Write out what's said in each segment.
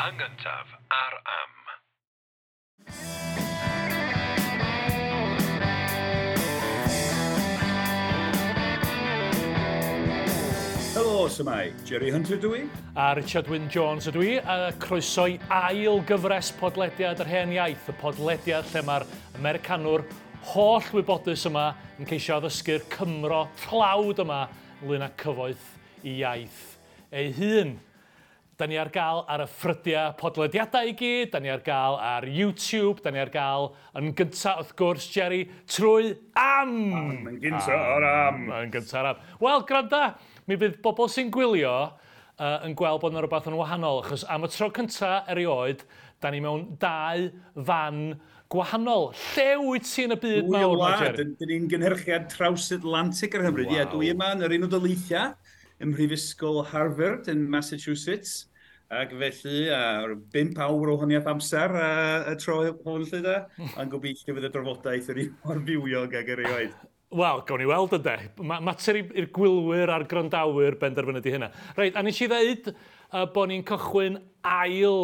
Yn gyntaf ar Am. Helo, s'mai. Jerry Hunter dw i. A Richard Wyn Jones ydw i, a croeso i ail gyfres podlediad yr hen iaith, y podlediad lle mae'r Americanwr holl wybodus yma yn ceisio addysgu'r Cymro tlawd yma ynglyn â cyfoeth i iaith ei hun. Da ni ar gael ar y ffrydiau podlediadau i gyd, da ni ar gael ar YouTube, da ni ar gael yn gyntaf wrth gwrs, Jerry, trwy Am! Am, yn gyntaf ar Am! Yn gyntaf ar Am. Wel, gwranda, mi fydd bobl sy'n gwylio yn gweld bod yna rhywbeth yn wahanol, achos am y tro cyntaf erioed, da ni mewn dau fan gwahanol. Lle wyt ti yn y byd mawr ma, Jerry? Dyn ni'n gynhyrchiad traws-Atlantic ar Hymru. Wow. Ie, dwi yma yn yr Unol Daleithiau, ym Mhrifysgol Harvard yn Massachusetts, ac felly ar 5 awr o honiaeth amser y tro hwn lle da, ond gobeithio fydd y drafodaeth yr un mor fywiog ag erioed. Wel, gawn ni weld ynde. Mater i'r gwylwyr a'r gwrandawyr benderfynu di hynna. Reit, a nes i ddeud bod ni'n cychwyn ail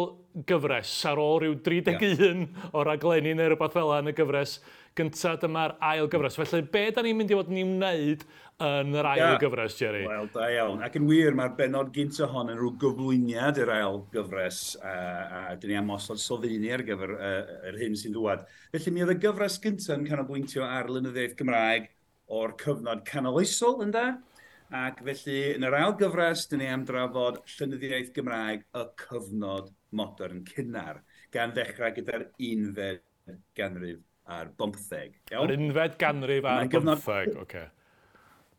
gyfres ar ôl rhyw 31 o raglenni neu rhywbeth fel yna yn y gyfres gyntaf. Dyma'r ail gyfres. Felly, be da ni'n mynd i fod yn ei wneud yn yr ail gyfres, Jerry? Wel, da iawn. Ac yn wir, mae'r bennod gyntaf hon yn rhyw gyflwyniad i'r ail gyfres, a dyn ni am osod sylfaeni ar gyfer yr hyn sy'n dŵad. Felly, mi oedd y gyfres gyntaf yn canolbwyntio ar lenyddiaeth Gymraeg o'r cyfnod canoloesol, ynde? Ac felly, yn yr ail gyfres, dyn ni am drafod llenyddiaeth Gymraeg y cyfnod modern cynnar, gan ddechrau gyda'r unfed ganrif ar bymtheg. Yr unfed ganrif ar bymtheg, oce.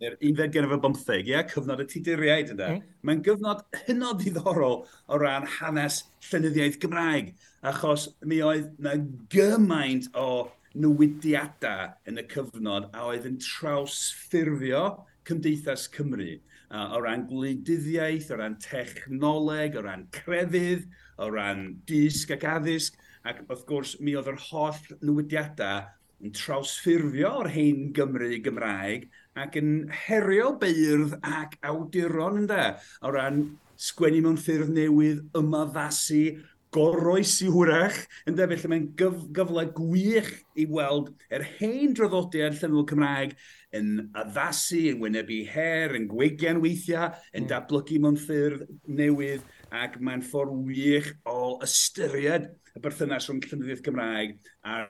Yr unfed ganrif ar bymtheg, ie, cyfnod y Tuduriaid, ynde. Mae'n gyfnod hynod ddiddorol o ran hanes llenyddiaeth Gymraeg, achos mi oedd na gymaint o newidiadau yn y cyfnod a oedd yn trawsffurfio cymdeithas Cymru, o ran gwleidyddiaeth, o ran technoleg, o ran crefydd, o ran dysg ac addysg, ac wrth gwrs mi oedd yr holl newidiadau yn trawsffurfio o'r hen Gymru Gymraeg ac yn herio beirdd ac awduron ynde, o ran sgwennu mewn ffyrdd newydd, ymaddasu, goroesi hwyrach, ynde, felly mae'n gyfle gwych i weld yr hen draddodiad llenyddol Cymraeg yn addasu, yn wynebu her, yn gwegian weithiau, yn datblygu mewn ffyrdd newydd, ac mae'n ffordd wych o ystyried y berthynas rhwng llenyddiaeth Gymraeg a'r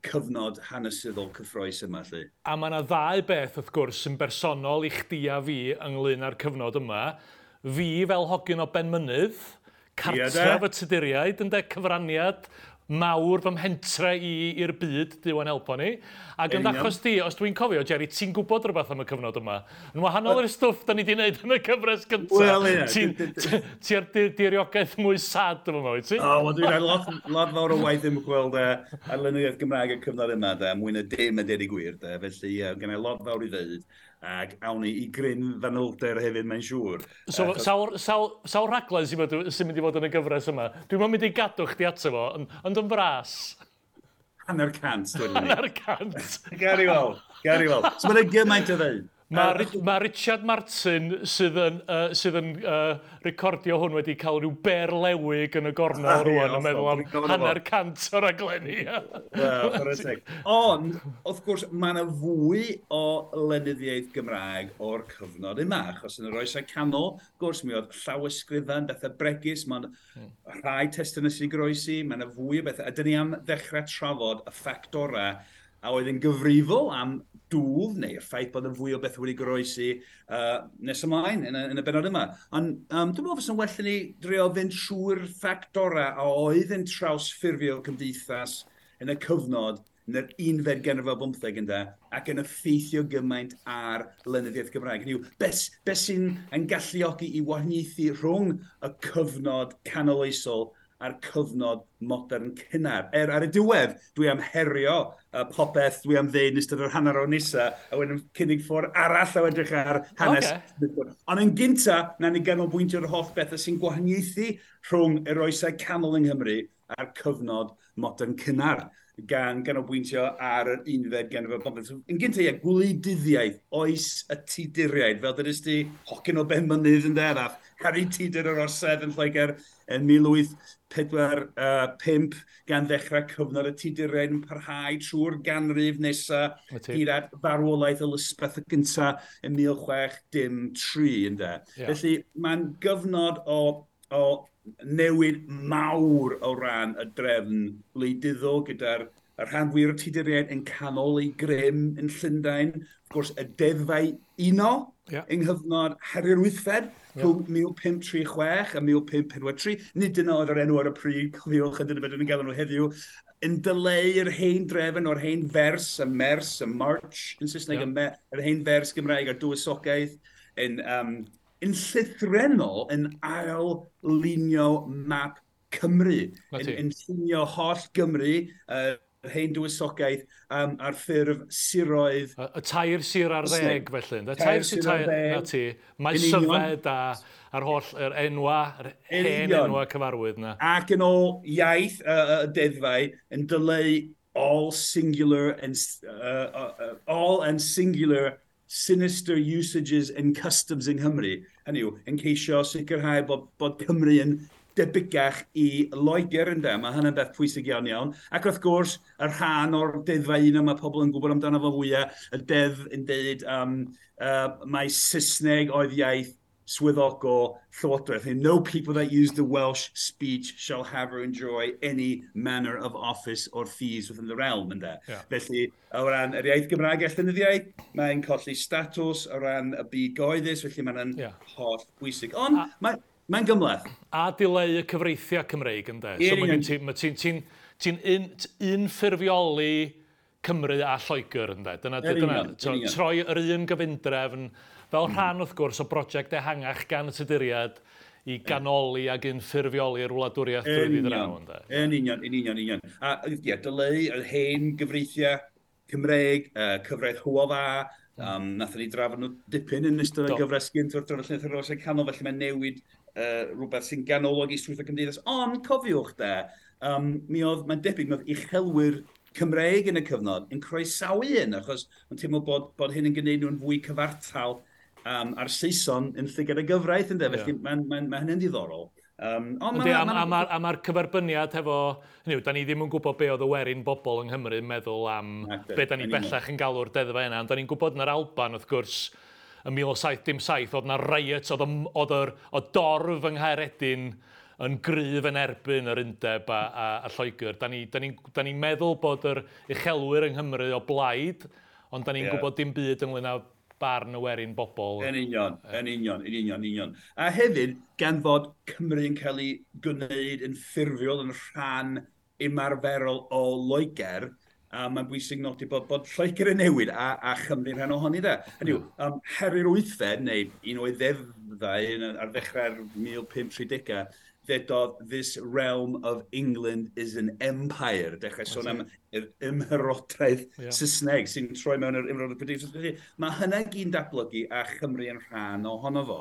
cyfnod hanesyddol cyffrous yma, lle. A mae yna ddau beth, wrth gwrs, sy'n bersonol i chdi a fi ynglyn â'r cyfnod yma. Fi fel hogyn o Benmynydd, cartref y Tuduriaid, ynde, cyfraniad mawr fy mhentre i i'r byd, Duw a'n helpo ni. Ac yn achos di, os dwi'n cofio, Jerry, ti'n gwybod rhywbeth am y cyfnod yma. Yn wahanol i'r stwff da ni wedi wneud yn y cyfres gyntaf. Wel, ie. Ti ar diriogaeth mwy sad efo yma, wyt ti? O, wel, dwi'n rhaid lot fawr o waith ymchwil ar lenyddiaeth Gymraeg y cyfnod yma, de, mwy na dim a deud y gwir, de. Felly, gen i lot fawr i ddeud. Ac awn ni i gryn fanylder hefyd, mae'n siŵr. So, sawl rhaglen sy'n mynd i fod yn y gyfres yma? Dwi'n mynd i gadw chdi ato fo, ond yn fras. 150, dwi'n mynd. 150. Gari weld, gari weld. So mae'n gymaint o ddeud. Mae Richard Martin sydd yn recordio hwn wedi cael rhyw berlewig yn y gornel rwan yn meddwl am 150 o raglenni. Wel, chwarae teg. Ond, wrth gwrs, mae yna fwy o lenyddiaeth Gymraeg o'r cyfnod yma, achos yn yr oesau canol, wrth gwrs, mi oedd llawysgrifau, bethau bregus, mae'n rhai testunau sy'n goroesi, mae yna fwy o bethau. A dyn ni am ddechrau trafod y ffactorau a oedd yn gyfrifol am dwf, neu'r ffaith bod yn fwy o beth wedi goroesi nes ymlaen yn y bennod yma. Ond dwi'n meddwl fysa'n well i ni drio fynd trwy'r ffactorau a oedd yn trawsffurfio cymdeithas yn y cyfnod yn yr unfed ganrif ar bymtheg ynde, ac yn effeithio gymaint ar lenyddiaeth Gymraeg. Hynny yw, beth sy'n yn galluogi i wahaniaethu rhwng y cyfnod canoloesol a'r cyfnod modern cynnar. Ar y diwedd, dwi am herio popeth dwi am ddeud yn ystod yr hanner awr nesa, a wedyn cynnig ffordd arall o edrych ar hanes. Okay. Ond yn gynta, na ni ganolbwyntio'r holl bethau sy'n gwahaniaethu rhwng yr oesau canol yng Nghymru a'r cyfnod modern cynnar, gan ganolbwyntio ar yr unfed ganrif ar bymtheg. Yn gynta, ie, gwleidyddiaeth, oes y Tuduriaid, fel dydys ti, hogyn o Benmynydd yn dderaf, Harri Tudur yr Orsedd yn Lloegr. yn 1845, gan ddechrau cyfnod y Tuduriaid yn parhau trwy'r ganrif nesaf hyd at farwolaeth Elizabeth y gyntaf yn 1603, ynde. Ie. Felly mae'n gyfnod o newid mawr o ran y drefn wleidyddol gyda'r y rhan fwyaf o'r Tuduriaid yn canol eu grym yn Llundain. Wrth gwrs, y deddfau uno yng nghyfnod Harri'r Wythfed rhwng 1536 a 1543. Nid dyna oedd yr enw ar y pryd, cofiwch, a dyna beth ni'n galw nhw heddiw, yn dileu'r hen drefn o'r hen fers, y mers, y march yn Saesneg, yr hen fers Gymraeg a'r dywysogaeth, yn llythrennol yn ail-lunio map Cymru. Na ti. Yn llunio holl Gymru, yr hen dywysogaeth, ar ffurf siroedd. Y tair sir ar Saesneg. ddeg, felly, ynde? Tair Tair sir, sir ar tair, ddeg. na ti. Mae Yn union. Syfed a'r holl, yr enwa, yr Yn hen union. enwa cyfarwydd na. Ac yn ôl iaith y deddfau yn dileu all singular and all and singular sinister usages and customs yng Nghymru. Hynny yw, yn ceisio sicrhau bod Cymru yn debygach i Loegr, ynde. Mae hynny'n beth pwysig iawn iawn. Ac wrth gwrs, y rhan o'r deddfau un mae pobl yn gwybod amdano fo fwyaf, y deddf yn deud mai Saesneg oedd iaith swyddogol Llywodraeth. And no people that use the Welsh speech shall have or enjoy any manner of office or fees within the realm, ynde. Felly, o ran yr iaith Gymraeg a llenyddiaeth, mae'n colli statws o ran y byd gyhoeddus, felly mae'n holl bwysig. Ond mae'n gymhleth. A dileu y cyfreithiau Cymreig, ynde? Ie, So mae union. gen ti, mae ti'n unffurfioli Cymru a Lloegr, ynde? Dyna, Yn dyna, union, yn union. troi yr un gyfundrefn fel rhan, wrth gwrs, o brosiect ehangach gan y Tuduriaid i ganoli ac unffurfioli'r wladwriaeth drwyddi draw, ynde? Yn union, yn union, yn union. A ie, dileu yr hen gyfreithiau Cymreig, cyfraith Hywel Dda, nathon ni drafod nhw dipyn yn ystod y gyfres gynt wrth drafod Llenyddiaeth yr Oesau Canol, felly mae'n newid rhywbeth sy'n ganolog i strwythur cymdeithas. Ond cofiwch de, mi oedd, mae'n debyg, mi oedd uchelwyr Cymreig yn y cyfnod yn croesawu hyn, achos mae'n teimlo bod hyn yn gwneud nhw'n fwy cyfartal a'r Saeson yn llygad y gyfraith, ynde? Felly mae hynny'n ddiddorol. Ond Yndi, a ma'r cyferbyniad hefo, hynny yw, da ni ddim yn gwybod be oedd y werin bobl yng Nghymru yn meddwl am Nacdi, be da ni yn union. bellach yn galw'r deddfau yna, ond da ni'n gwybod yn yr Alban, wrth gwrs, yn 1707, oedd na riot, oedd y dorf yng Nghaeredin yn gryf yn erbyn yr undeb a Lloegr. Da ni meddwl bod yr uchelwyr yng Nghymru o blaid, ond da ni'n gwybod dim byd ynglyn â barn y werin bobl. Yn union, yn union, yn union, yn union. A hefyd, gan fod Cymru yn cael ei gwneud yn ffurfiol yn rhan ymarferol o Loegr, a mae'n bwysig nodi bod Lloegr yn newid a Chymru'n rhan ohoni de. Hynny yw, Harri'r Wythfed, neu un o'i ddeddfau ar ddechrau'r 1530au, ddedodd, This realm of England is an empire. Dechrau sôn am yr ymherodraeth Saesneg sy'n troi mewn yr ymherodraeth Brydeinig. Felly, mae hynna gyd yn datblygu a Chymru yn rhan ohono fo.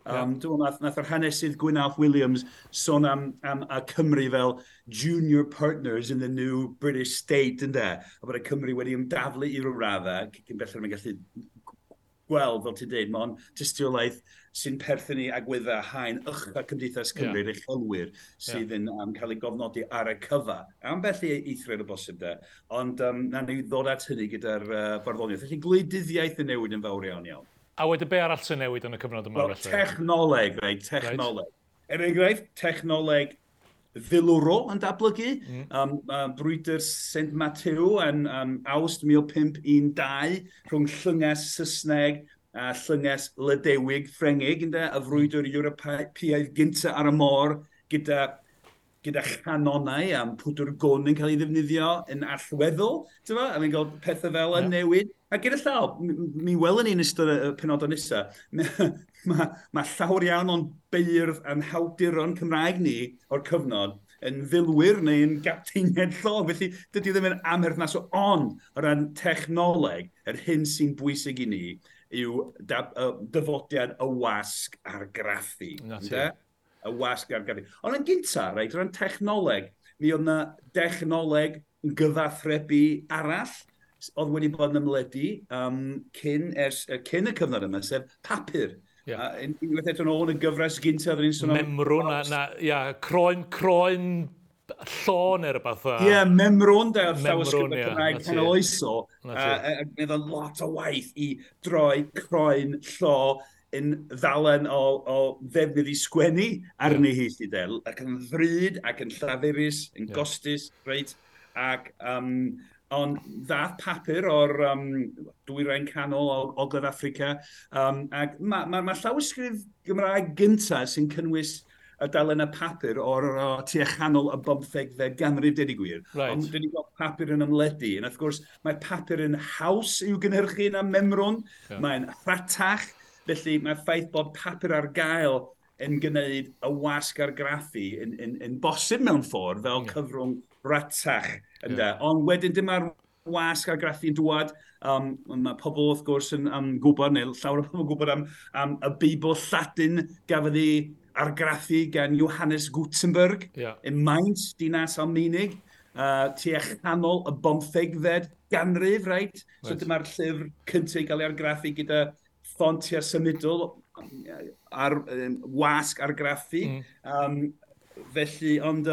Dwi'n meddwl nath yr hanesydd Gwyn Williams sôn am y Cymru fel junior partners in the new British state, ynde? A bod y Cymru wedi ymdaflu i ryw raddau, cyn belled mae'n gallu gweld, fel ti'n dweud, mae'n tystiolaeth sy'n perthyn i agweddau haen ucha Cymdeithas Cymru'r uchelwyr sydd yn cael ei gofnodi ar y cyfa. Ambell i eithriad o bosib de, ond na ni ddod at hynny gyda'r barddoniaeth. Felly gwleidyddiaeth yn newid yn fawr iawn iawn. A wedyn be arall sy'n newid yn y cyfnod yma, Wel, felly? technoleg, reit, technoleg. Er enghraifft, technoleg filwrol yn datblygu. Brwydr St Matthew yn Awst 1512 rhwng llynges Saesneg a llynges Lydewig Ffrengig, ynde, y frwydr Ewropeaidd gynta ar y môr gyda chanonau am pwdwr gwn yn cael ei ddefnyddio yn allweddol, ti'n a ni'n gweld pethau fel yn newid. A gyda llaw, mi welwn ni yn ystod y penodau nesaf, ma llawer iawn o'n beirdd a'n hawduron Cymraeg ni o'r cyfnod yn filwyr neu yn gapteiniaid llong. Felly dydy o ddim yn amherthnasol, ond o ran technoleg, yr hyn sy'n bwysig i ni yw dyfodiad y wasg argraffu. Na ti. Ynde? Y wasg argraffu. Ond yn gynta, reit, o ran technoleg, mi oedd na dechnoleg gyfathrebu arall oedd wedi bod yn ymledu cyn y cyfnod yma, sef papur. Yeah. Unwaith eto nôl yn y gyfres gyntaf, oedden ni'n sôn am... Memrwn, na, ia, croen llo neu rhywbeth. Ie, memrwn, de, o'r llawysgrifau Cymraeg canoloesol. A gwneud o'n lot o waith i droi croen llo yn ddalen o ddefnydd i sgwennu arni hi, lly de. Ac yn ddrud, ac yn llafurus, yn gostus, reit? Ac, ond ddath papur o'r dwyrain canol o Ogledd Affrica. Ac ma llawysgrif Gymraeg gyntaf sy'n cynnwys y dalen y papur o'r tua chanol y 15fed ganrif, deud y gwir. Right. Ond dyn ni'n gweld papur yn ymledu. And wrth gwrs, mae papur yn haws i'w gynhyrchu na memrwn. Yeah. Mae'n rhatach. Felly mae'r ffaith bod papur ar gael yn gwneud y wasg argraffu yn bosib mewn ffordd fel cyfrwng ratach. Yeah. Ond wedyn dyma'r wasg argraffu yn dŵad. Mae pobl wrth gwrs yn gwybod, neu llawer o pobl yn gwybod am y Beibl Lladin gafodd ei argraffu gan Johannes Gutenberg yn Mainz, dinas Almaenig, tua chanol y 15fed ganrif, right? So dyma'r llyfr cyntaf i gael ei argraffu gyda ffontiau symudol ar wasg argraffu. Felly, ond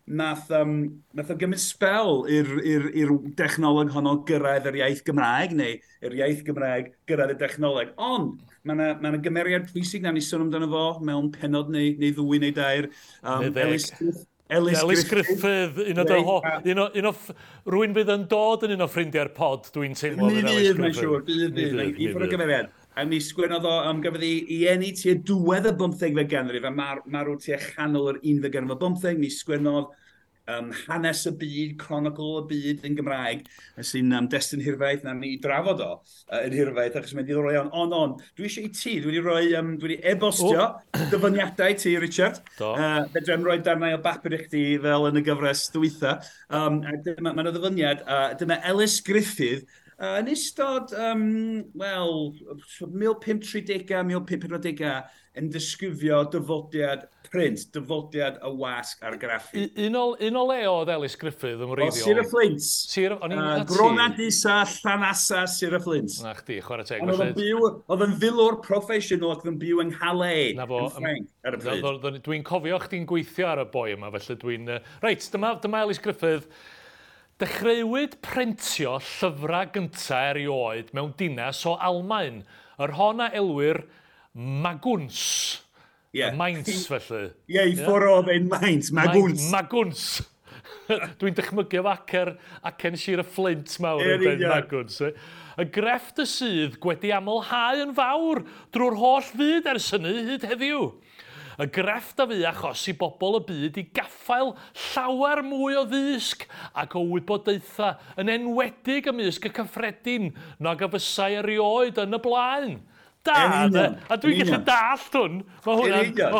nath o gymryd sbel i'r dechnoleg honno gyrraedd yr iaith Gymraeg, neu yr iaith Gymraeg gyrraedd y dechnoleg. Ond mae yna gymeriad pwysig na ni sôn amdano fo mewn pennod neu ddwy neu dair. Ellis Griffith, un o rwy'n fydd yn dod yn un o ffrindiau'r pod, dwi'n teimlo. Mi fydd, mae'n siŵr, bydd. I ffwrdd o gymeriad. A mi sgwennodd o, gafodd ei eni tua diwedd y 15fed ganrif, a marw tua chanol yr 11fed ganrif o 15, mi sgwennodd hanes y byd, chronicle y byd yn Gymraeg, sy'n destun hirfaith, na ni drafod o yn hirfaith, achos mae'n diddorol iawn. Ond, dwi eisiau i ti, dwi wedi e-bostio dyfyniadau ti, Richard. Fedra i'm rhoi darnau o bapur i chdi fel yn y gyfres dwytha. Mae yna ddyfyniad, dyma Ellis Griffith, yn ystod, 1530, 1540 yn disgrifio dyfodiad print, dyfodiad y wasg argraffu. Un o le oedd Ellis Griffith yn wreiddiol? O, Sir y Fflint. Gronadisa, Llanasa, Sir y Fflint. Na chdi, chwarae teg. Ond oedd yn filwr proffesiynol ac oedd yn byw yng Nghalais, yn Ffrainc, ar y pryd. Dwi'n cofio chdi'n gweithio ar y boi yma, felly dwi'n... Reit, dyma Ellis Griffith. Dechreuwyd printio llyfrau gyntaf erioed mewn dinas o Almaen, yr hon a elwir Maguns. Yeah. Mainz, felly. Ie, i ffwrdd oedd ein Mainz, Maguns. Maguns. Dwi'n dychmygu efo acen Sir y Fflint mawr yn dweud Maguns. Y grefft y sydd wedi amlhau yn fawr drwy'r holl fyd ers hynny hyd heddiw. Y grefft a fu achos i bobl y byd i gaffael llawer mwy o ddysg ac o wybodaethau yn enwedig ymysg y cyffredin nag a fysai erioed yn y blaen. Da, a dwi'n gallu dallt hwn. Mae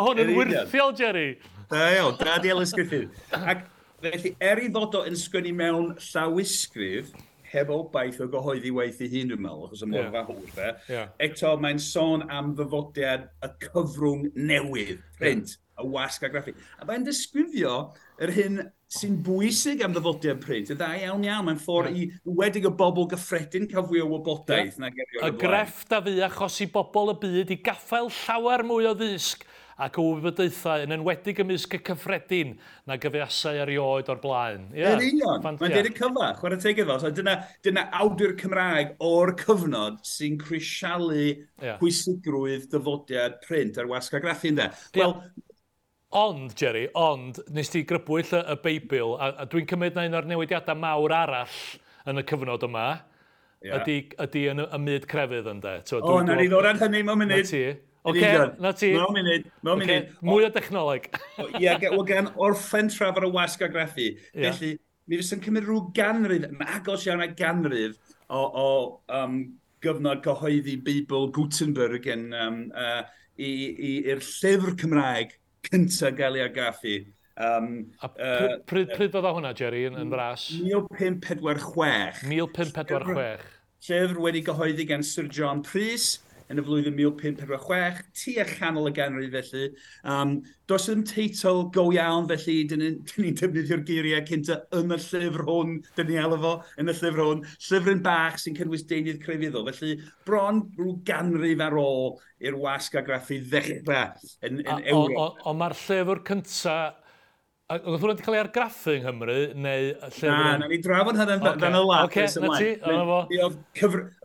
hwn yn wyrthiol, Jerry. Da iawn, da di Ellis Griffith. Ac felly, er i fod o yn sgwennu mewn llawysgrif, heb obaith o gyhoeddi waith ei hun, dwi'n meddwl, achos y mor fawr, de. Eto, mae'n sôn am ddyfodiad y cyfrwng newydd, print, y wasg argraffu. A mae'n disgrifio yr hyn sy'n bwysig am ddyfodiad print. Y dda iawn iawn, mae'n ffordd i wedig y bobl gyffredin cael fwy o wybodaeth. Y grefft a fu achos i bobl y byd i gaffael llawer mwy o ddysg ac o wybodaethau yn enwedig ymysg y cyffredin na gyfeasau erioed o'r blaen. Yn union, mae'n deud y cyfa, chwarae teg iddo. So dyna awdur Cymraeg o'r cyfnod sy'n crisialu pwysigrwydd dyfodiad print ar wasg argraffu, ynde. Wel, ond, Jerry, nes ti grybwyll y Beibl, a dwi'n cymryd na un o'r newidiadau mawr arall yn y cyfnod yma, ydy yn y myd crefydd, ynde. O, na ni ddod ar hynny mewn munud. Oce, na ti. Mewn munud. Mwy o dechnoleg. Ie, gan orffen trafod y wasg argraffu. Felly, mi fysa'n cymryd rhyw ganrif, yn agos iawn a ganrif o gyfnod cyhoeddi Beibl Gutenberg yn, i'r llyfr Cymraeg cyntaf gael ei argraffu. A pryd fydda hwnna, Jerry, yn fras? 1546. 1546. Llyfr wedi gyhoeddi gan Sir John Prys, yn y flwyddyn 1546, tua chanol y ganrif felly. Does ddim teitl go iawn felly, dyn ni'n defnyddio'r geiriau cynta yn y llyfr hwn, dyn ni alw fo yn y llyfr hwn, llyfryn bach sy'n cynnwys deunydd crefyddol. Felly bron rhyw ganrif ar ôl i'r wasg argraffu ddechrau yn Ewrop. Ond mae'r llyfr cynta. Oedd hwnna wedi cael ei argraffu yng Nghymru, neu llyfr? Na, na ni drafod hynny'n fan y lap. Oce, na ti, o'na fo. Mi oedd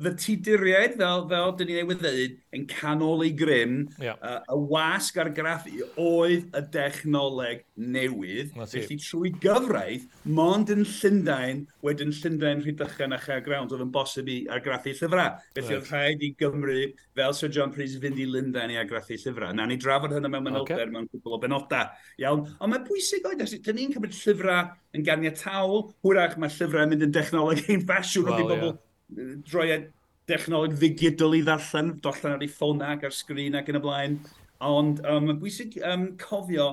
y Tuduriaid, fel dyn ni newydd ddeud, yn canol ei grym, y wasg argraffu oedd y dechnoleg newydd. Felly trwy gyfraith, mond yn Llundain, wedyn Llundain, Rhydychen a Chaergrawnt, oedd yn bosib i argraffu llyfrau. Felly oedd rhaid i Gymru, fel Sir John Prys, fynd i Lundain i argraffu llyfrau. Na ni drafod hynny mewn manylder mewn cwpl o benodau. Iawn, ond mae'n bwysig oed, dyn ni'n cymryd llyfrau yn ganiataol, hwyrach mae llyfrau yn mynd yn dechnoleg ein ffasiwn, wrth i bobl droi dechnoleg ddigidol i ddarllen, darllen ar ei ffôn ac ar sgrin ac yn y blaen. Ond mae'n bwysig cofio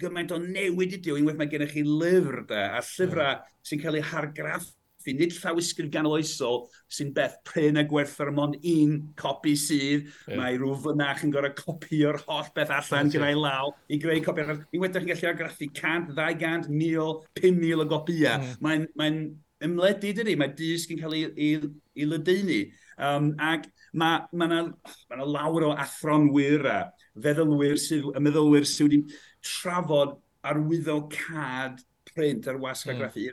gymaint o newid ydyw, unwaith mae gennych chi lyfr de, a llyfrau sy'n cael eu hargraffu, nid llawysgrif ganoloesol sy'n beth prin a gwerthfawr mond un copi sydd. Mae rhyw fynach yn gorfod copio'r holl beth allan gyda'i law i greu copi arall. Unwaith ydych chi'n gallu argraffu 100, 200, 1000, 5,000 o gopïau. Mae'n ymledu, dydy? Mae dysg yn cael ei ledaenu. Ac mae ma lawer o athronwyr a feddylwyr sydd, y meddylwyr sydd wedi trafod arwyddocâd print ar wasg argraffu.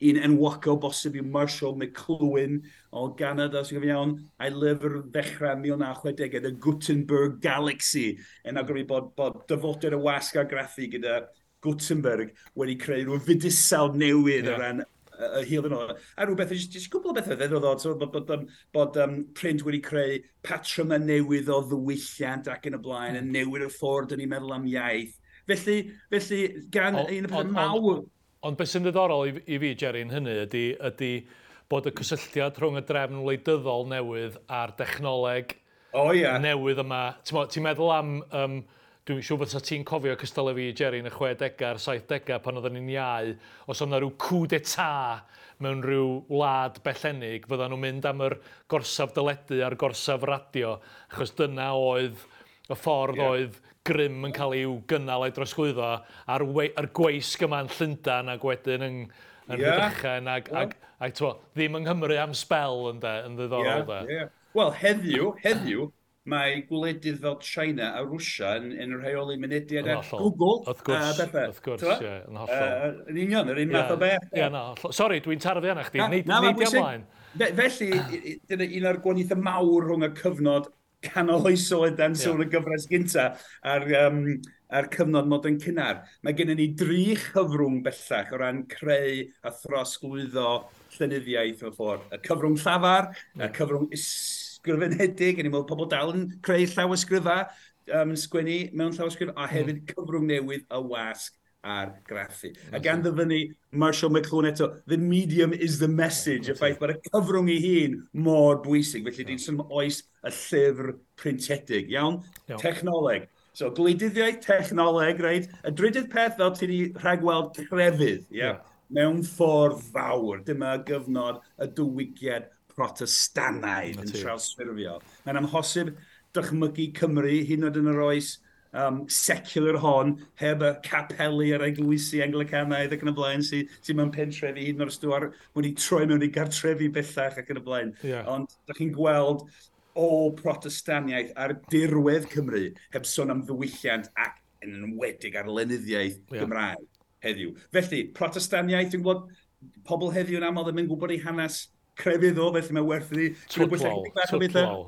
Un enwocol bosib yw Marshall McLuhan o Ganada, sy'n gofio iawn, a'i lyfr ddechrau 1960, The Gutenberg Galaxy, yn awgrymu bod dyfodau'r y wasg argraffu gyda Gutenberg wedi creu rhyw fydysawd newydd o ran y hil yn ôl. A rhywbeth, jyst cwbl o bethau ddiddorol, so, bod print wedi creu patrymau newydd o ddiwylliant ac yn y blaen, yn newid y ffordd dyn ni'n meddwl am iaith. Felly gan un o'r pethau mawr. Ond beth sy'n ddiddorol i fi, Jerry, yn hynny ydy bod y cysylltiad rhwng y drefn wleidyddol newydd a'r dechnoleg newydd yma. Ti'n meddwl am, dwi'n siŵr bod ti'n cofio cystal â fi, Jerry, yn y 60au a'r 70au pan oedden ni'n iau, os oedd yna rhyw coup d'état mewn rhyw wlad bellennig, fyddan nhw'n mynd am yr gorsaf deledu a'r gorsaf radio, achos dyna oedd y ffordd oedd grym yn cael ei gynnal a'i drosglwyddo a'r gweisg yma yn Llundain ac wedyn yn Rhydychen ac ddim yng Nghymru am sbel yn ddiddorol. Wel, heddiw, mae gwledydd fel China a Rwsia yn rheoli mynediad at Google. Wrth gwrs, ie, yn hollol. Yn union, yr un math o beth. Ie, na, sori, dwi'n tarfu arna chdi, neud i ymlaen. Felly, dyna un o'r gwahaniaethau mawr rhwng y cyfnod canol oesol dan sôn y gyfres gynta a'r cyfnod modern cynnar. Mae gennym ni dri chyfrwng bellach o ran creu a throsglwyddo llenyddiaeth mewn ffordd. Y cyfrwng llafar, y cyfrwng ysgrifenedig, yn i'n meddwl pobl dal yn creu llawysgrifau, yn sgwennu mewn llawysgrif, a hefyd cyfrwng newydd y wasg argraffu. A gan ddyfynnu Marshall McLuhan eto, the medium is the message, y ffaith bod y cyfrwng ei hun mor bwysig. Felly dwi'n sôn am oes y llyfr printiedig, iawn? Technoleg. So, gwleidyddiaeth, technoleg, reit? Y drydydd peth, fel ti wedi rhagweld, crefydd, yeah? Mewn ffordd fawr. Dyma gyfnod y diwygiad Protestannaidd yn trawsffurfio. Mae'n amhosib dychmygu Cymru, hyd yn oed yn yr oes secular hon, heb y capeli a'r eglwysi Anglicanaidd ac yn y blaen, sy'n mewn pentrefi, hyd yn oed os dwi wedi troi mewn i gartrefi bellach ac yn y blaen. Ond ydych chi'n gweld o Protestaniaeth ar dirwedd Cymru, heb sôn am ddiwylliant ac yn enwedig ar lenyddiaeth Gymraeg heddiw. Felly, Protestaniaeth, dwi'n gwybod pobl heddiw yn aml ddim yn gwybod ei hanes crefyddol, felly mae werth i twtlol.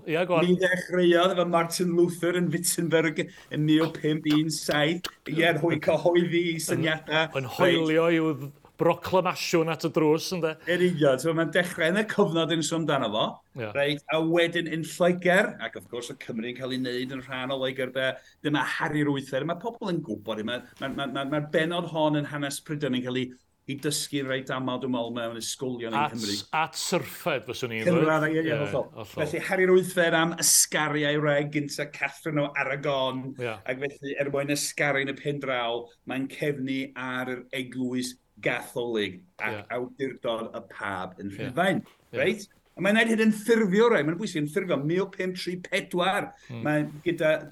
Ia, go on. Mi ddechreuodd efo Martin Luther yn Wittenberg yn 1517, ie, yn cyhoeddi syniadau. Yn hoelio i'w broclamasiwn at y drws, ynde? Yn union, so mae'n dechrau yn y cyfnod yn sôn amdano fo, reit, a wedyn yn Lloegr, ac wrth gwrs y Cymru'n cael ei wneud yn rhan o Loegr, de, dyma Harri'r Wythfed, mae pobl yn gwybod, mae'r bennod hon yn hanes Prydain yn cael ei dysgu reit aml, dwi'n meddwl, mewn ysgolion yng Nghymru. At syrffed, fyswn i'n dweud. Ie, hollol. Felly, Harri'r Wythfed am ysgaru a'i wraig gynta Catherine o Aragon, ac felly, er mwyn ysgaru yn y pen draw, mae'n cefnu ar yr eglwys Gatholig ac awdurdod y pab yn Rhufain. Reit? A mae'n gwneud hyn yn ffurfio rai, mae'n bwysig yn ffurfio 1534. Mae'n gyda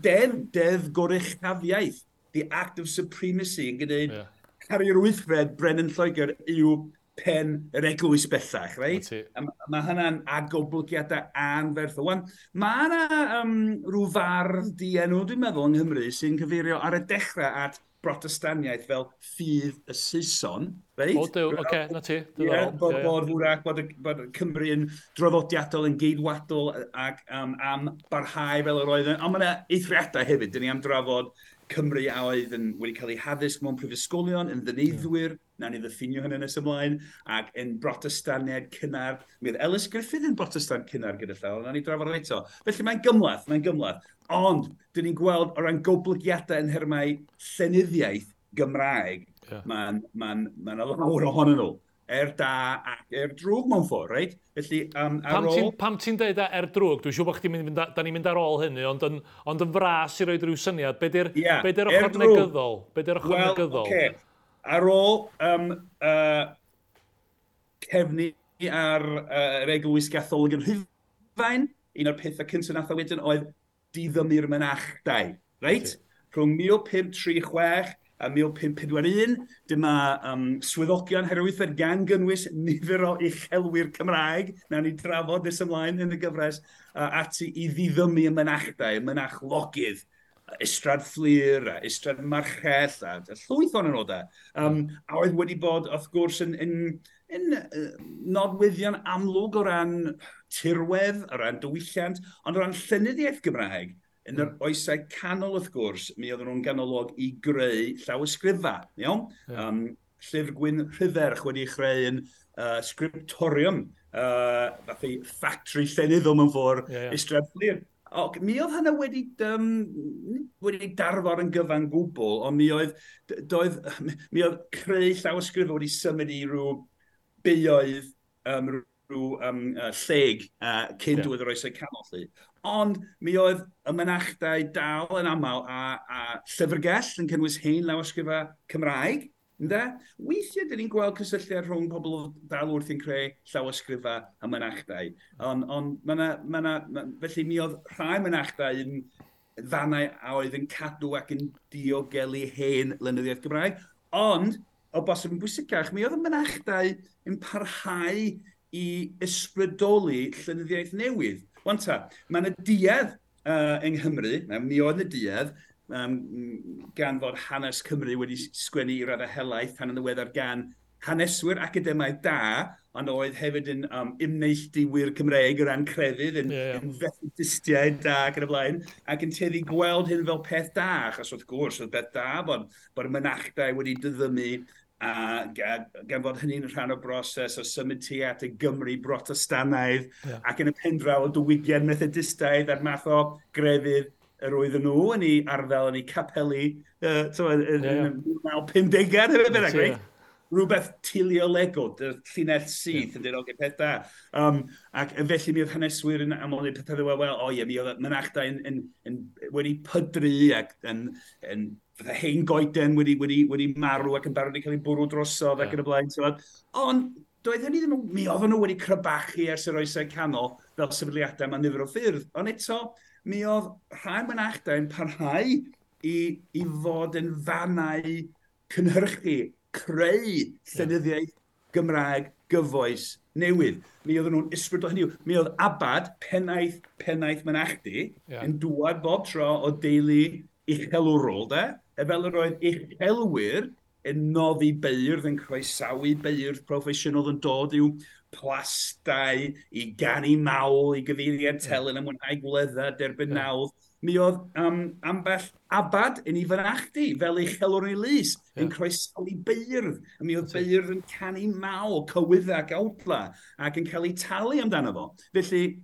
deddf goruchafiaeth, the Act of Supremacy, yn gwneud Harri'r Wythfed, Brenin Lloegr, yw pen yr eglwys bellach, reit? A mae hynna'n agoblygiadau anferthol. Wan, mae yna rhyw fardd dienw, dwi'n meddwl, yng Nghymru, sy'n cyfeirio ar y dechrau at Brotestaniaeth fel ffydd y Saeson, reit? O, dew, oce, na ti. Ie, bod hwrach, bod Cymru yn draddodiadol, yn geidwadol ac am barhau fel yr oedd. Ond mae yna eithriadau hefyd, dyn ni am drafod Cymru a oedd yn wedi cael eu haddysg mewn prifysgolion, yn ddyneiddwyr, nawn ni ddiffinio hynny nes ymlaen, ac yn Brotestaniaid cynnar. Mi oedd Ellis Griffith yn Brotestant cynnar gyda llaw, nawn ni drafod eto. Felly mae'n gymhleth. Ond, dyn ni'n gweld o ran goblygiadau yn nhermau llenyddiaeth Gymraeg, mae'n ma lawr ohonyn nhw. Da ac drwg mewn ffordd, reit? Felly, ar ôl... Pam ti'n deud er drwg? Dwi'n siŵr bod chdi'n mynd, da ni'n mynd ar ôl hynny, ond yn fras i roed rhyw syniad, be di'r ochr negyddol? Be di'r ochr negyddol? Okay. Ar ôl cefnu ar yr Eglwys Gatholig yn Rhufain, un o'r pethau cyntaf nath o wedyn oedd diddymu'r mynachdai, reit? Rhwng 1536 a 1541, dyma swyddogion Harri'r Wythfed gan gynnwys nifer o uchelwyr Cymraeg, nawn ni drafod nes ymlaen yn y gyfres, ati i ddiddymu y mynachdai, y mynachlogydd, Ystrad Fflur, a Ystrad Marchell, a llwyth o'n nhw da. A oedd wedi bod, wrth gwrs, yn nodweddion amlwg o ran tirwedd, o ran diwylliant, ond o ran llenyddiaeth Gymraeg, yn yr oesau canol, wrth gwrs, mi oedden nhw'n ganolog i greu llawysgrifau, iawn? Llyfr Gwyn Rhydderch wedi chreu yn scriptorium, fath i factory llenyddol mewn ffordd, Ystrad Fflur. Ac mi oedd hynna wedi darfod yn gyfan gwbl, ond mi oedd creu llawysgrifau wedi symud i rhyw beoedd, rhyw lleg cyn diwedd yr oesau canol. Lly. Ond mi oedd y mynachdai dal yn aml a llyfrgell yn cynnwys hen lawysgrifau Cymraeg. Ynde? Weithiau, dyn ni'n gweld cysylltiad rhwng pobl dal wrth yn creu llawysgrifau a mynachdai. Ond felly mi oedd rhai mynachdai yn fannau a oedd yn cadw ac yn diogelu hen lenyddiaeth Gymraeg. Ond, o bosib yn bwysicach, mi oedd y mynachdai yn parhau i ysbrydoli llenyddiaeth newydd. Wan ta, mae yna duedd yng Nghymru, mi oedd yna duedd, gan fod hanes Cymru wedi sgwennu i raddau helaeth tan yn ddiweddar gan haneswyr academaidd da, ond oedd hefyd yn ymneilltuwyr Cymreig o ran crefydd, yn Methodistiaid da ac yn y blaen, ac yn tueddu gweld hyn fel peth da, achos wrth gwrs oedd peth da bod y mynachdai wedi diddymu, a gan fod hynny'n rhan o broses o symud tuag at y Gymru Brotestanaidd, ac yn y pen draw o diwygiad Methodistaidd a'r math o grefydd yr oedden nhw yn ei arddel, yn ei capeli, yn y 1950au, hefyd bynnag, reit? Rhywbeth teleolegol, llinell syth yn dweud, oce, peth da. Ac felly mi oedd haneswyr yn aml yn pethau fel, wel, o ie, mi oedd mynachdai wedi pydru ac yn fatha hen goeden wedi marw ac yn barod i cael ei bwrw drosodd ac yn y blaen. Ond doedd hynny ddim, mi oedden nhw wedi crybachu ers yr oesau canol fel sefydliadau mewn nifer o ffyrdd. Ond eto, mi oedd rhai mynachdai yn parhau i fod yn fannau cynhyrchu, creu llenyddiaeth Gymraeg gyfoes newydd. Mi oedden nhw'n ysbrydol hynny. Mi oedd Abad, pennaeth mynachdy, yn dŵad bob tro o deulu uchelwrol, de? E fel yr oedd uchelwyr yn noddi beirdd, yn croesawu beirdd proffesiynol yn dod i'w plastai, i ganu mawl, i gyfeiriad telyn, a mwynhau gwledda, derbyn nawdd. Mi oedd ambell abad yn ei fynachdy, fel uchelwr yn ei lys, yn croesawu beirdd. A mi oedd beirdd yn canu mawl, cywydda ac awdla, ac yn cael eu talu amdano fo. Felly,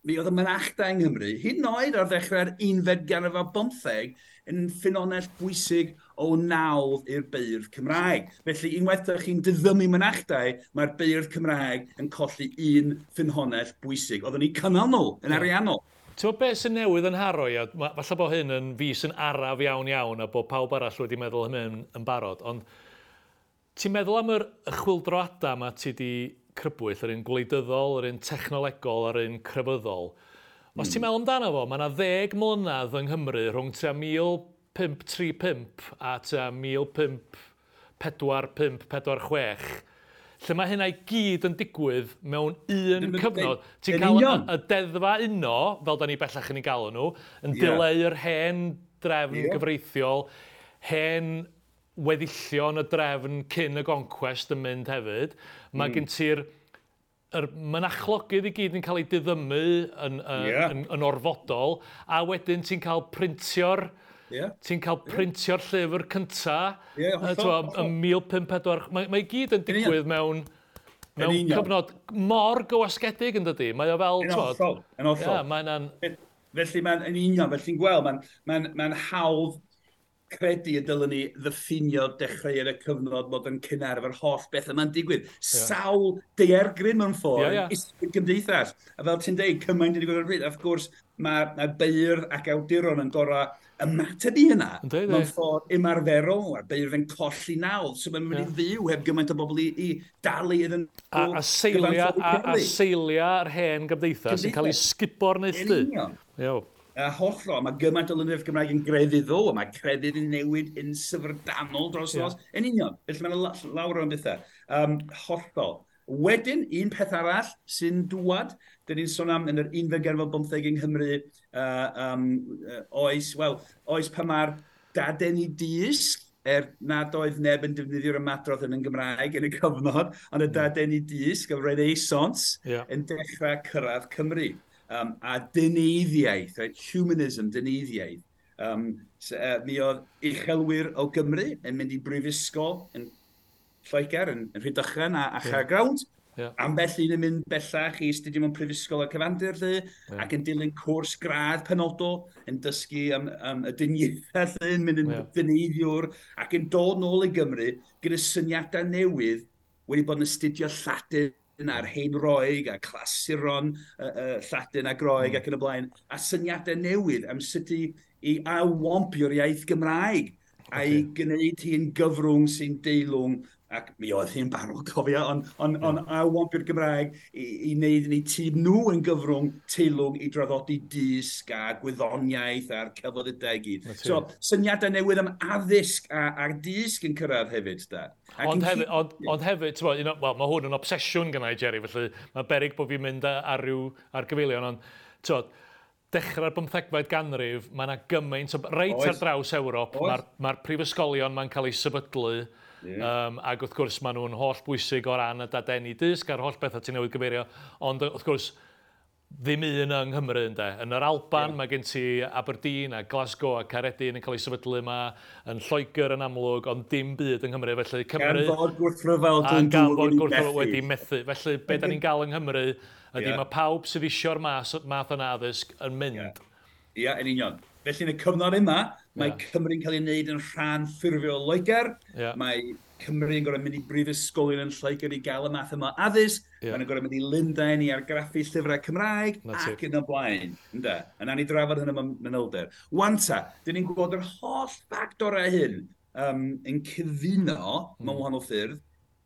mi oedd y mynachdai yng Nghymru, hyd yn oed ar ddechrau'r unfed ganrif ar bymtheg, yn ffynhonnell bwysig o nawdd i'r beirdd Cymraeg. Felly, unwaith ydych chi'n diddymu mynachdai, mae'r beirdd Cymraeg yn colli un ffynhonnell bwysig. Oedden ni'n cynnal nhw yn ariannol. Ti'n gwybod beth sy'n newydd yn haro i? Falle bod hyn yn fis yn araf iawn iawn a bod pawb arall wedi meddwl hynny yn barod, ond ti'n meddwl am yr chwyldroadau yma ti di crybwyll, yr un gwleidyddol, yr un technolegol a'r un crefyddol. Os ti'n meddwl amdano fo, mae yna 10 mlynedd yng Nghymru rhwng tua 1535 a tua 1545, 46, lle mae hynna i gyd yn digwydd mewn un cyfnod. Ti'n cael y deddfa uno, fel da ni bellach yn ei galw nhw, yn dileu yr hen drefn gyfreithiol, hen weddillion y drefn cyn y goncwest yn mynd hefyd. Mae gen ti'r mynachlogydd i gyd yn cael ei diddymu yn orfodol, a wedyn ti'n cael printio'r ti'n cael printio'r llyfr cynta, yn 1504. Mae i gyd yn digwydd mewn cyfnod mor gywasgedig, yn dydi? Mae o fel... Yn hollol, yn hollol. Felly mae'n yn union, felly'n gweld, mae'n hawdd credu y dylen ni ddiffinio dechreuad y cyfnod bod yn cynnar efo'r holl beth yma'n digwydd. Sawl daeargryn mewn ffordd, gymdeithas. A fel ti'n deud, cymaint yn digwydd ar y pryd. Wrth gwrs, mae beirdd ac awduron yn gorau ymateb i hynna mewn ffordd ymarferol. Mae'r beirdd yn colli nawdd, so mae'n mynd i fyw heb gymaint o bobl i dalu iddyn nhw. A seiliau'r hen gymdeithas yn cael ei sgubo'r neilltu. Yn union. A hollol, mae gymaint o lenyddiaeth Gymraeg yn grefyddol, a mae crefydd yn newid yn syfrdanol dros nos. Yn union, felly mae'n lawr o'n bethau. Hollol. Wedyn, un peth arall sy'n dŵad, dyn ni'n sôn am yn yr unfed ganrif ar bymtheg yng Nghymru, oes, wel, oes pan mae'r dadeni dysg, nad oedd neb yn defnyddio'r ymadrodd yn Gymraeg yn y cyfnod, ond y dadeni dysg, y Renaissance, yn dechrau cyrraedd Cymru. A dyneiddiaeth, right? Humanism, dyneiddiaeth. Mi oedd uchelwyr o Gymru yn mynd i brifysgol yn Lloegr, yn Rhydychen a Chaergrawnt. Ambell un yn mynd bellach i astudio mewn prifysgol y cyfandir, lle, ac yn dilyn cwrs gradd penodol, yn dysgu am y dyniaethau, lle, yn mynd yn dyneiddiwr, ac yn dod nôl i Gymru gyda syniadau newydd wedi bod yn astudio Lladin a'r hen Roeg a clasuron Lladin a Groeg ac yn y blaen, a syniadau newydd am sut i ailwampio'r iaith Gymraeg a'i gwneud hi'n gyfrwng sy'n deilwng, ac mi oedd hi'n barod, cofio, ond ailwampio'r Gymraeg i wneud yn eu tîm nhw yn gyfrwng teilwng i draddodi dysg a gwyddoniaeth a'r celfyddydau i gyd. So, syniadau newydd am addysg a dysg yn cyrraedd hefyd, da. Ond hefyd, wel, mae hwn yn obsesiwn gynna i, Jerry, felly mae beryg bod fi'n mynd ar ryw ar gyfeilion, ond t'wod, dechrau'r 15fed ganrif, mae yna gymaint o... Reit ar draws Ewrop, mae'r prifysgolion ma'n cael eu sefydlu, ac wrth gwrs maen nhw'n holl bwysig o ran y dadeni dysg a'r holl bethau ti'n newydd gyfeirio, ond wrth gwrs ddim un yng Nghymru, ynde. Yn yr Alban mae gen ti Aberdeen a Glasgow a Caeredin yn cael eu sefydlu yma, yn Lloegr yn amlwg, ond dim byd yng Nghymru. Felly Cymru... Gan fod gwrthryfel Glyndŵr wedi methu. Felly be da ni'n gael yng Nghymru ydy mae pawb sydd isio'r math yna addysg yn mynd. Ia, yn union. Felly yn y cyfnod yma, mae Cymru'n cael ei wneud yn rhan ffurfiol o Loegr. Mae Cymru'n gorfod mynd i brifysgolion yn Lloegr i gael y math yma o addysg. Maen nhw'n gorfod mynd i Lundain i argraffu llyfrau Cymraeg ac yn y blaen. Ynde? A nawn ni drafod hynny mewn manylder. Wan ta, dyn ni'n gwybod yr holl ffactorau hyn yn cyfuno mewn wahanol ffyrdd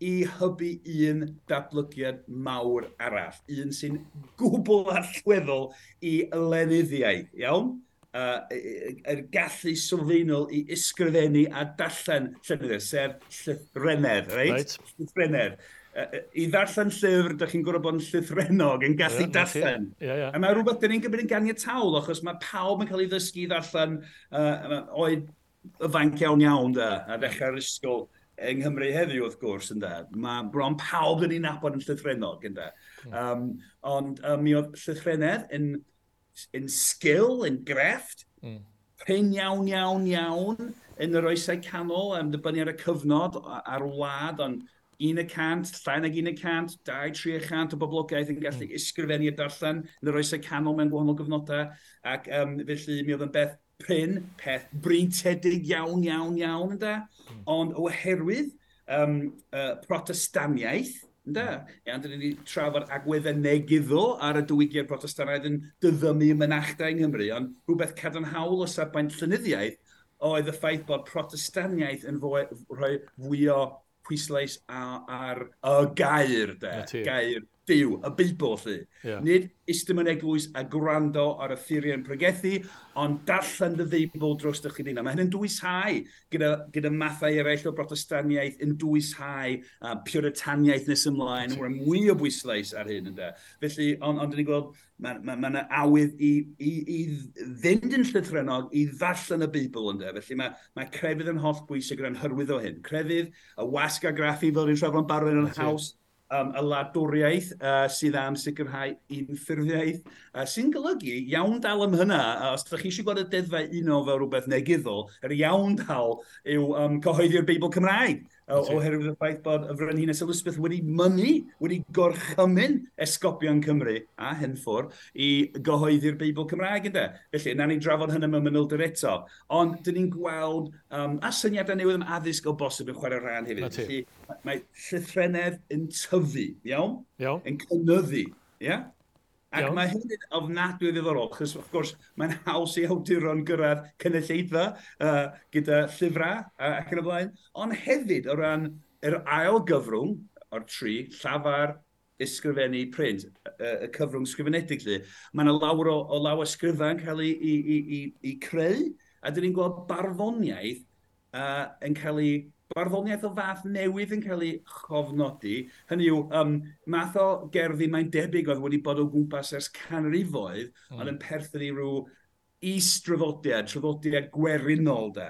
i hybu un datblygiad mawr arall, un sy'n gwbl allweddol i lenyddiaeth, iawn? Yr gallu sylfaenol i ysgrifennu a darllen llenyddiaeth, sef llythrennedd, reit? Llythrennedd. I ddarllen llyfr, dych chi'n gorfod bod yn llythrennog, yn gallu darllen. A mae rhywbeth dyn ni'n gymryd yn ganiataol, achos mae pawb yn cael ei ddysgu i ddarllen oed ifanc iawn iawn, da, a ddechrau'r ysgol yng Nghymru heddiw, wrth gwrs, ynde. Mae bron pawb dyn ni'n nabod yn llythrennog, ynde. Ond mi oedd llythrennedd yn sgil, yn grefft, prin iawn, iawn, iawn yn yr oesau canol, am dibynnu ar y cyfnod, ar wlad, ond 1%, llai nag 1%, 2-3% o boblogaeth yn gallu ysgrifennu a darllen yn yr oesau canol mewn gwahanol gyfnodau, ac felly mi oedd yn beth prin, peth breintiedig iawn, iawn, iawn, ynde? Ond oherwydd Protestaniaeth, ynde? Iawn, dyn ni wedi trafod agweddau negyddol ar y diwygiad Protestannaidd yn diddymu mynachdai yng Nghymru, ond rhywbeth cadarnhaol o safbwynt llenyddiaeth oedd y ffaith bod Protestaniaeth yn rhoi fwy o pwyslais ar y gair, de, gair Duw, y Beibl, lly. Yeah. Nid eistedd mewn eglwys a gwrando ar y ffuriau'n pregethu, ond darllen dy Feibl dros dy chdi. Mae hyn yn dwyshau gyda mathau eraill o Brotestaniaeth, yn dwyshau Puritaniaeth nes ymlaen, mae'n mwy o bwyslais ar hyn, ynde. Felly, ond dyn ni'n gweld, mae yna awydd i fynd yn llythrennog, i ddarllen y Beibl, ynde. Felly mae crefydd yn holl bwysig o ran hyrwyddo hyn. Crefydd, y wasg argraffu fel ni'n trafod yn barod yn haws, y wladwriaeth sydd am sicrhau unffurfiaeth, sy'n golygu iawn dal am hynna, os ydych chi eisiau gweld y deddfau uno fel rhywbeth negyddol, yr iawn dal yw cyhoeddi'r Beibl Cymraeg, oherwydd y ffaith bod y Frenhines Elizabeth wedi mynnu, wedi gorchymyn esgobion Cymru a Henffwr i gyhoeddi'r Beibl Cymraeg, ynde. Felly, nawn ni drafod hynny mewn manylder eto. Ond, dyn ni'n gweld a syniadau newydd am addysg o bosib yn chwarae rhan hefyd. Felly, mae llythrennedd yn tyfu, iawn? Iawn. Yn cynyddu, ie? Ac Iawn. mae hyn yn ofnadwy o ddiddorol, achos wrth gwrs mae'n haws i awduron gyrraedd cynulleidfa gyda llyfrau ac yn y blaen. Ond hefyd o ran yr ail gyfrwng o'r tri, llafar, ysgrifennu, print, y cyfrwng sgrifenedig lly, mae yna lawer o lawysgrifau yn cael ei creu, a dyn ni'n gweld barddoniaeth yn cael ei barddoniaeth o fath newydd yn cael ei chofnodi. Hynny yw, math o gerddi mae'n debyg oedd wedi bod o gwmpas ers canrifoedd, ond yn perthyn i ryw is-draddodiad, traddodiad gwerinol de.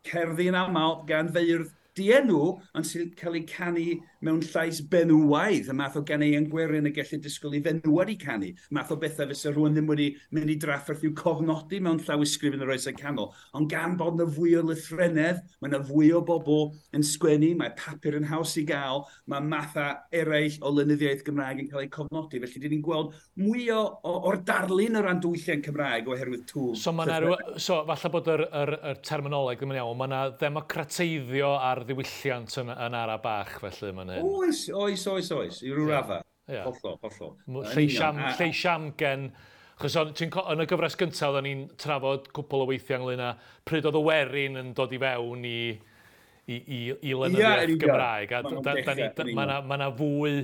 Cerddi yn aml gan feirdd dienw, ond sy'n cael ei canu mewn llais benywaidd, y math o ganeuon gwerin y gellir disgwyl i fenywod i canu, math o bethau fysa rhywun ddim wedi mynd i drafferth i'w cofnodi mewn llawysgrif yn yr oesau canol. Ond gan bod yna fwy o lythrennedd, mae yna fwy o bobl yn sgwennu, mae papur yn haws i gael, mae mathau eraill o lenyddiaeth Gymraeg yn cael eu cofnodi. Felly, dyn ni'n gweld mwy o'r darlun o ran diwylliant Cymraeg oherwydd twf. So, ma' 'na ryw, so falle bod yr terminoleg ddim yn iawn, mae yna ddemocrateiddio ar ddiwylliant yn ara bach felly mae'n hyn. Oes, oes, oes, oes, i ryw raddau. Hollol, hollol. Yn union. Lleis amgen, achos yn y gyfres gyntaf oedden ni'n trafod cwpl o weithiau ynglyn â pryd oedd y werin yn dod i fewn i lenyddiaeth Ie, yn union. Gymraeg. A Ma' nhw'n dechrau, yn union. ma' 'na fwy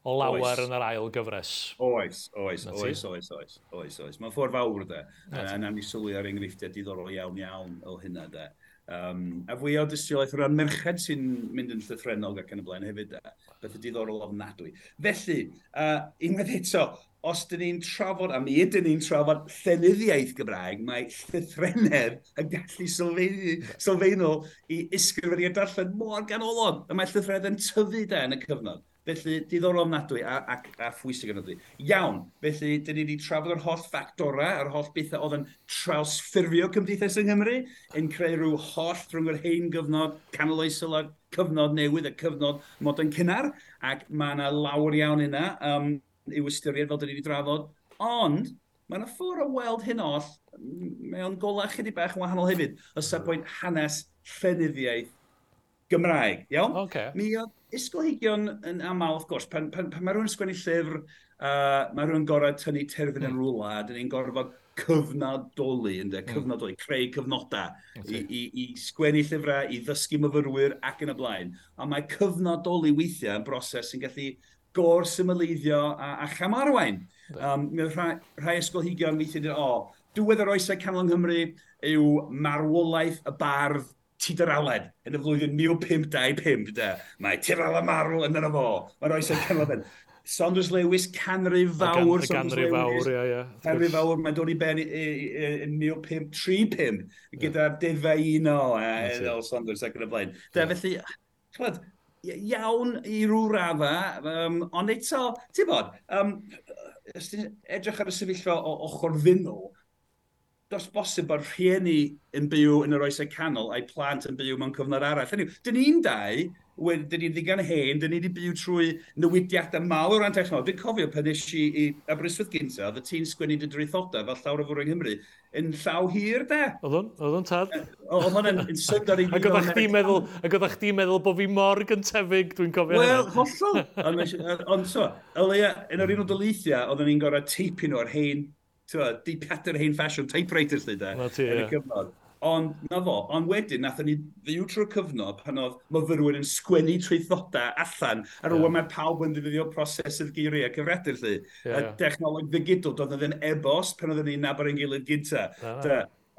o lawer Oes. yn yr ail gyfres. Oes, oes, Na ti. oes, oes, oes, oes, oes. Mae'n ffordd fawr, de. Na ti. A nawn ni sylwi ar enghreifftiau diddorol iawn, iawn o hynna, de. A fwy o dystiolaeth o ran merched sy'n mynd yn llythrennog ac yn y blaen hefyd, de. Beth diddorol ofnadwy. Felly, unwaith eto, os dyn ni'n trafod, a mi ydyn ni'n trafod llenyddiaeth Gymraeg, mae llythrennedd yn gallu sylfaenol i ysgrifennu a darllen mor ganolog. A mae llythrennedd yn tyfu de yn y cyfnod. Felly, diddorol ofnadwy a phwysig ofnadwy. Iawn, felly, dyn ni wedi trafod yr holl ffactorau, yr holl bethau oedd yn trawsffurfio cymdeithas yng Nghymru, yn creu rhyw holl rhwng yr hen gyfnod canoloesol a cyfnod newydd, y cyfnod modern cynnar, ac mae yna lawer iawn yna i'w ystyried fel dyn ni wedi drafod, ond mae yna ffordd o weld hyn oll mewn golau chydig bach yn wahanol hefyd, o safbwynt hanes llenyddiaeth Gymraeg, iawn? Mi oedd ysgolheigion yn aml, wrth gwrs, pan mae rhywun yn sgwennu llyfr, mae rhywun gorfod tynnu terfyn yn rhywle, a dyn ni'n gorfod cyfnodoli, ynde, cyfnodoli, creu cyfnodau i sgwennu llyfrau, i ddysgu myfyrwyr ac yn y blaen. Ond mae cyfnodoli weithiau yn broses sy'n gallu gor-symleiddio a chamarwain. Mi oedd rhai ysgolheigion weithiau dweud, o, diwedd yr oesau canol yng Nghymru yw marwolaeth y bardd Tudor Aled yn y flwyddyn 1525, de. Mae Tudor Aled marw yn yno fo. Mae'r oesau canol ben. Saunders Lewis, canrif fawr, Y Saunders ganrif fawr, Lewis. ie, ie. Canrif fawr, mae'n dod i ben yn 1535, gyda'r deddfau uno, fel Saunders ac yn y blaen. De, felly, ch'mod, iawn i ryw radda, ond eto, ti'n bod, os ti'n edrych ar y sefyllfa o ochr ddynol, does bosib bod rhieni yn byw yn yr oesau canol a'i plant yn byw mewn cyfnod arall. Hynny yw, dyn ni'n dau, dyn ni'n ddigon hen, dyn ni wedi byw trwy newidiadau mawr o ran technoleg. Dwi'n cofio pan nes i i Aberystwyth gynta, oedd y ti'n sgwennu dy draethodau fel llawer o fwrw yng Nghymru, yn llaw hir, de. Oedd o'n, oedd o'n tad. Oedd hwnna'n yn syndod i fi Ac fel oeddach chdi'n meddwl, ac oeddach chdi'n meddwl bod fi mor gyntefig, dwi'n cofio Wel, hynna. hollol. Ond so, o leia, yn yr Unol Daleithiau, oedden ni'n gorfod teipio nhw ar hen, ti'n gwbod, deipiadur hen ffasiwn, typewriter lly, de, Na ti, yn y ie. cyfnod. Ond, na fo, ond wedyn, nathon ni fyw trwy'r cyfnod pan oedd myfyrwyr yn sgwennu traethodau allan, a rwan mae pawb yn ddefnyddio prosesydd geiriau cyfredol, lly. Y dechnoleg ddigidol, doedd ddim e-bost pan oedden ni'n nabod ein gilydd gynta.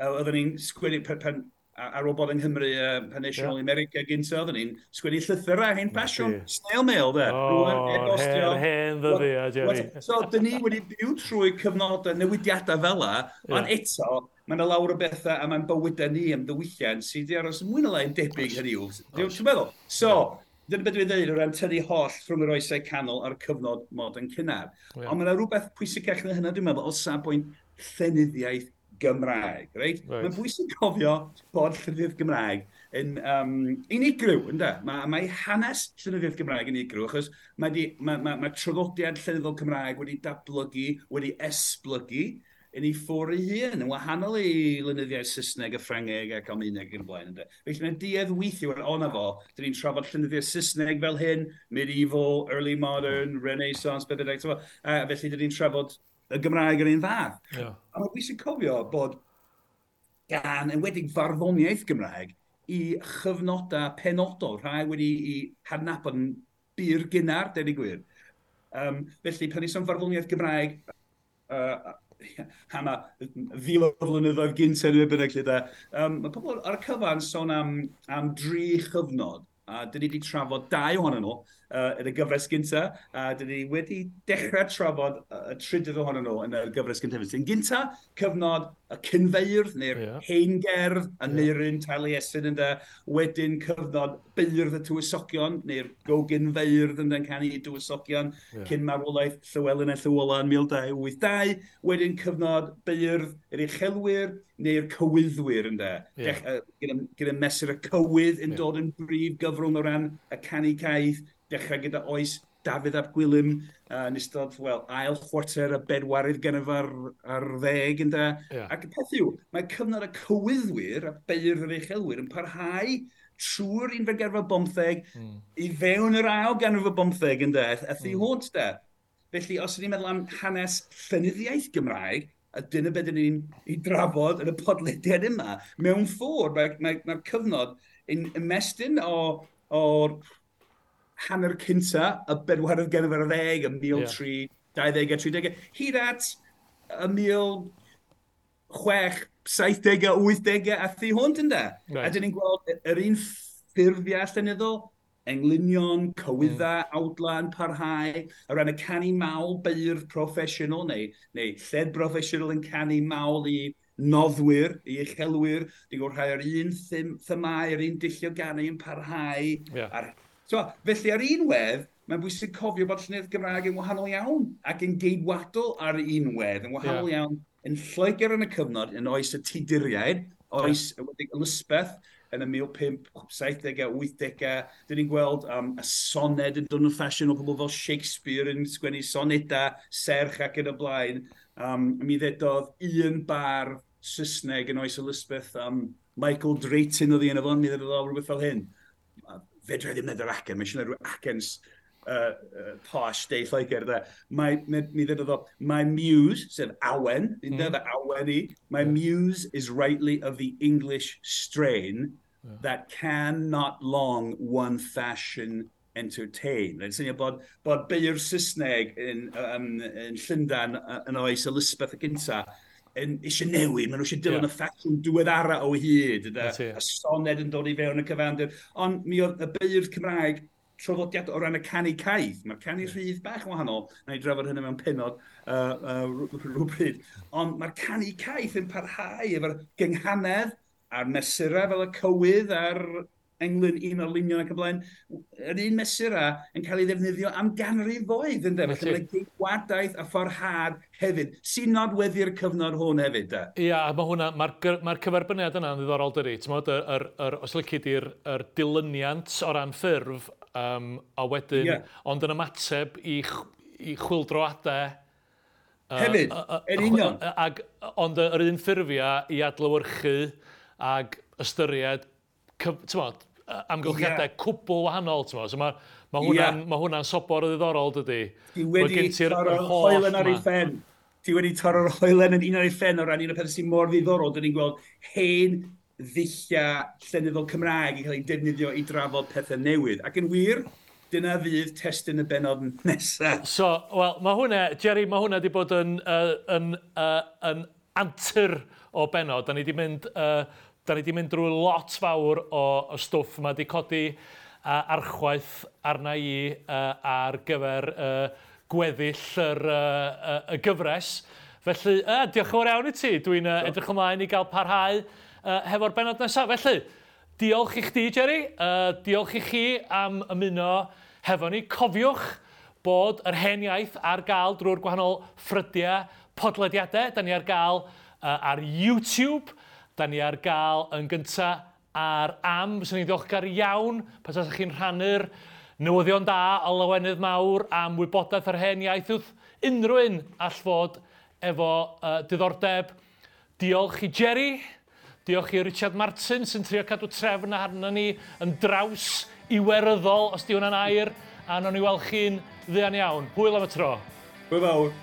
Oedden ni'n sgwennu, pan, ar ôl bod yng Nghymru pan es i nôl i America gynta, oedden ni'n sgwennu llythyrau hen ffasiwn, snail mail, de. O, hen ddyddiau, Jerry. So, dyn ni wedi byw trwy cyfnodau newidiadau fel la, ond eto, mae yna lawer o bethau a mae'n bywydau ni am ddiwylliant sydd wedi aros mwy na lai'n debyg, hynny yw. Ti'n meddwl? So, dyna beth dwi'n dweud o ran tynnu holl rhwng yr oesau canol a'r cyfnod modern cynnar. Ond mae yna rhywbeth pwysicach na hynna, dwi'n meddwl, o safbwynt llenyddiaeth Gymraeg, reit? Mae'n bwysig cofio bod llenyddiaeth Gymraeg yn unigryw, ynde? Mae hanes llenyddiaeth Gymraeg yn unigryw, achos mae traddodiad llenyddol Cymraeg wedi datblygu, wedi esblygu yn ei ffordd ei hun, yn wahanol i lenyddiaeth Saesneg a Ffrangeg ac Almaeneg yn y blaen. Ynde? Felly mae'n duedd weithio, o na fo, dyn ni'n trafod llenyddiaeth Saesneg fel hyn, medieval, early modern, Renaissance, beth bynnag, a felly dyn ni'n trafod y Gymraeg yr un fath. A mae'n bwysig cofio bod gan, enwedig farddoniaeth Gymraeg, i chyfnodau penodol, rhai wedi i hadnabod yn bur gynnar, deud y gwir. Felly, pan ni'n sôn farddoniaeth Gymraeg, am y fil o flynyddoedd gynt neu bynnag lle da, mae pobl ar y cyfan sôn am dri chyfnod. A dyn ni wedi trafod dau ohonyn nhw yn y gyfres gynta, a dyn ni wedi dechrau trafod y trydydd ohonyn nhw yn y gyfres gyntaf. Yn gynta, cyfnod y cynfeirdd, neu'r heingerdd, y Neirin, Taliesin ynde, wedyn cyfnod beirdd y tywysogion, neu'r gogynfeirdd ynde, yn canu i dywysogion, cyn marwolaeth Llywelyn a Llywola yn 1282, wedyn cyfnod beirdd yr uchelwyr, neu'r cywyddwyr ynde. Gyda mesur y cywydd yn dod yn brif gyfrwng o ran y canu caeth, dechrau gyda oes Dafydd ap Gwilym yn ystod, wel, ail chwarter y bedwaredd ganrif ar ddeg, ynde. Ac y peth yw, mae cyfnod y cywyddwyr a beirdd yr uchelwyr yn parhau trwy'r unfed ganrif ar bymtheg i fewn yr ail ganrif ar bymtheg, ynde, a thu hwnt, de. Felly, os ydyn ni'n meddwl am hanes llenyddiaeth Gymraeg, a dyna beth ydyn ni'n ei drafod yn y podlediad yma, mewn ffordd, mae'r cyfnod yn ymestyn o'r hanner cynta, y bedwaredd ganrif ar ddeg, y 1320 a 30, hyd at y 1670 a 80 a thu hwnt, ynde? A dyn ni'n gweld yr un ffurfiau llenyddol, englynion, cywyddau, awdla yn parhau, o ran y canu mawl beirdd proffesiynol neu lled broffesiynol yn canu mawl i noddwyr, i uchelwyr, dwi'n gweld rhai o'r un themau, yr un dulliau ganu yn parhau. So, felly ar un wedd, mae'n bwysig cofio bod llenyddiaeth Gymraeg yn wahanol iawn ac yn geidwadol ar un wedd, yn wahanol iawn yn Lloegr yn y cyfnod, yn oes y Tuduriaid, oes Elizabeth, yn y 1570au, 80au, dyn ni'n gweld y soned yn dod yn ffasiwn o pobl fel Shakespeare yn sgwennu sonedau, serch ac yn y blaen. Mi ddedodd un bardd Saesneg yn oes Elizabeth, Michael Drayton oedd hi yn y fo, mi ddedodd o rhywbeth fel hyn. Fedra i ddim neud yr acen, mae eisiau rhyw acen posh de Lloegr, de. Mi ddedodd o, my muse, sef awen, mm. awen i, my muse is rightly of the English strain that can not long one fashion entertain. Mae'n syniad bod beirdd Saesneg yn Llundain yn oes Elizabeth y gynta yn eisiau newid, maen nhw eisiau dilyn y ffasiwn diweddara o hyd, y soned yn dod i fewn y cyfandir. Ond mi oedd y beirdd Cymraeg traddodiad o ran y canu caeth. Mae'r canu rhydd bach yn wahanol, na i drafod hynny mewn pennod rhywbryd. Ond mae'r canu caeth yn parhau efo'r gynghanedd a'r mesurau fel y cywydd a'r englyn un o'r lunion ac y blaen, yr un mesurau yn cael ei ddefnyddio am ganrifoedd, ynde? Felly mae'n geidwadaeth a fforhad hefyd, sy'n nodweddu'r cyfnod hwn hefyd, de? Ia, mae hwnna, mae'r cyferbyniad yna'n ddiddorol dydi. Ti'n os lici di'r dilyniant o ran ffurf, a wedyn, ond yn ymateb i chwyldroadau. Hefyd, yn union. Ond yr un ffurfiau i adlewyrchu ag ystyried, ti'n amgylchiadau cwbl wahanol, ti'n So mae hwnna'n sobor o ddiddorol, dydy. Ti wedi torro'r hoelen ar ei phen. Ti wedi torro'r hoelen yn un ar ei phen o ran un o'r pethau sy'n mor ddiddorol. Dyn ni'n gweld hen ddulliau llenyddol Cymraeg yn cael ei defnyddio i drafod pethau newydd. Ac yn wir, dyna fydd testun y bennod nesaf. So, wel, mae hwnna, Jerry, mae hwnna wedi bod yn antur o bennod. Da ni 'di mynd drwy lot fawr o stwff. Mae wedi codi archwaith arna i ar gyfer gweddill y gyfres. Felly, diolch yn fawr iawn i ti. Dwi'n edrych ymlaen i gael parhau hefo'r bennod nesaf. Felly, diolch i chdi, Jerry. Diolch i chi am ymuno hefo ni. Cofiwch bod Yr Hen Iaith ar gael drwy'r gwahanol ffrydiau podlediadau. Da ni ar gael ar YouTube. Da ni ar gael yn gyntaf ar Am. Fyswn i'n ddiolchgar iawn pe tasech chi'n rhannu'r newyddion da o lawenydd mawr am wybodaeth Yr Hen Iaith wrth unrhyw un all fod efo diddordeb. Diolch i Jerry, diolch i Richard Martin sy'n trio cadw trefn arno ni yn draws iweryddol, os di hwnna'n air, a nawn ni weld chi'n fuan iawn. Hwyl am y tro. Hwyl fawr.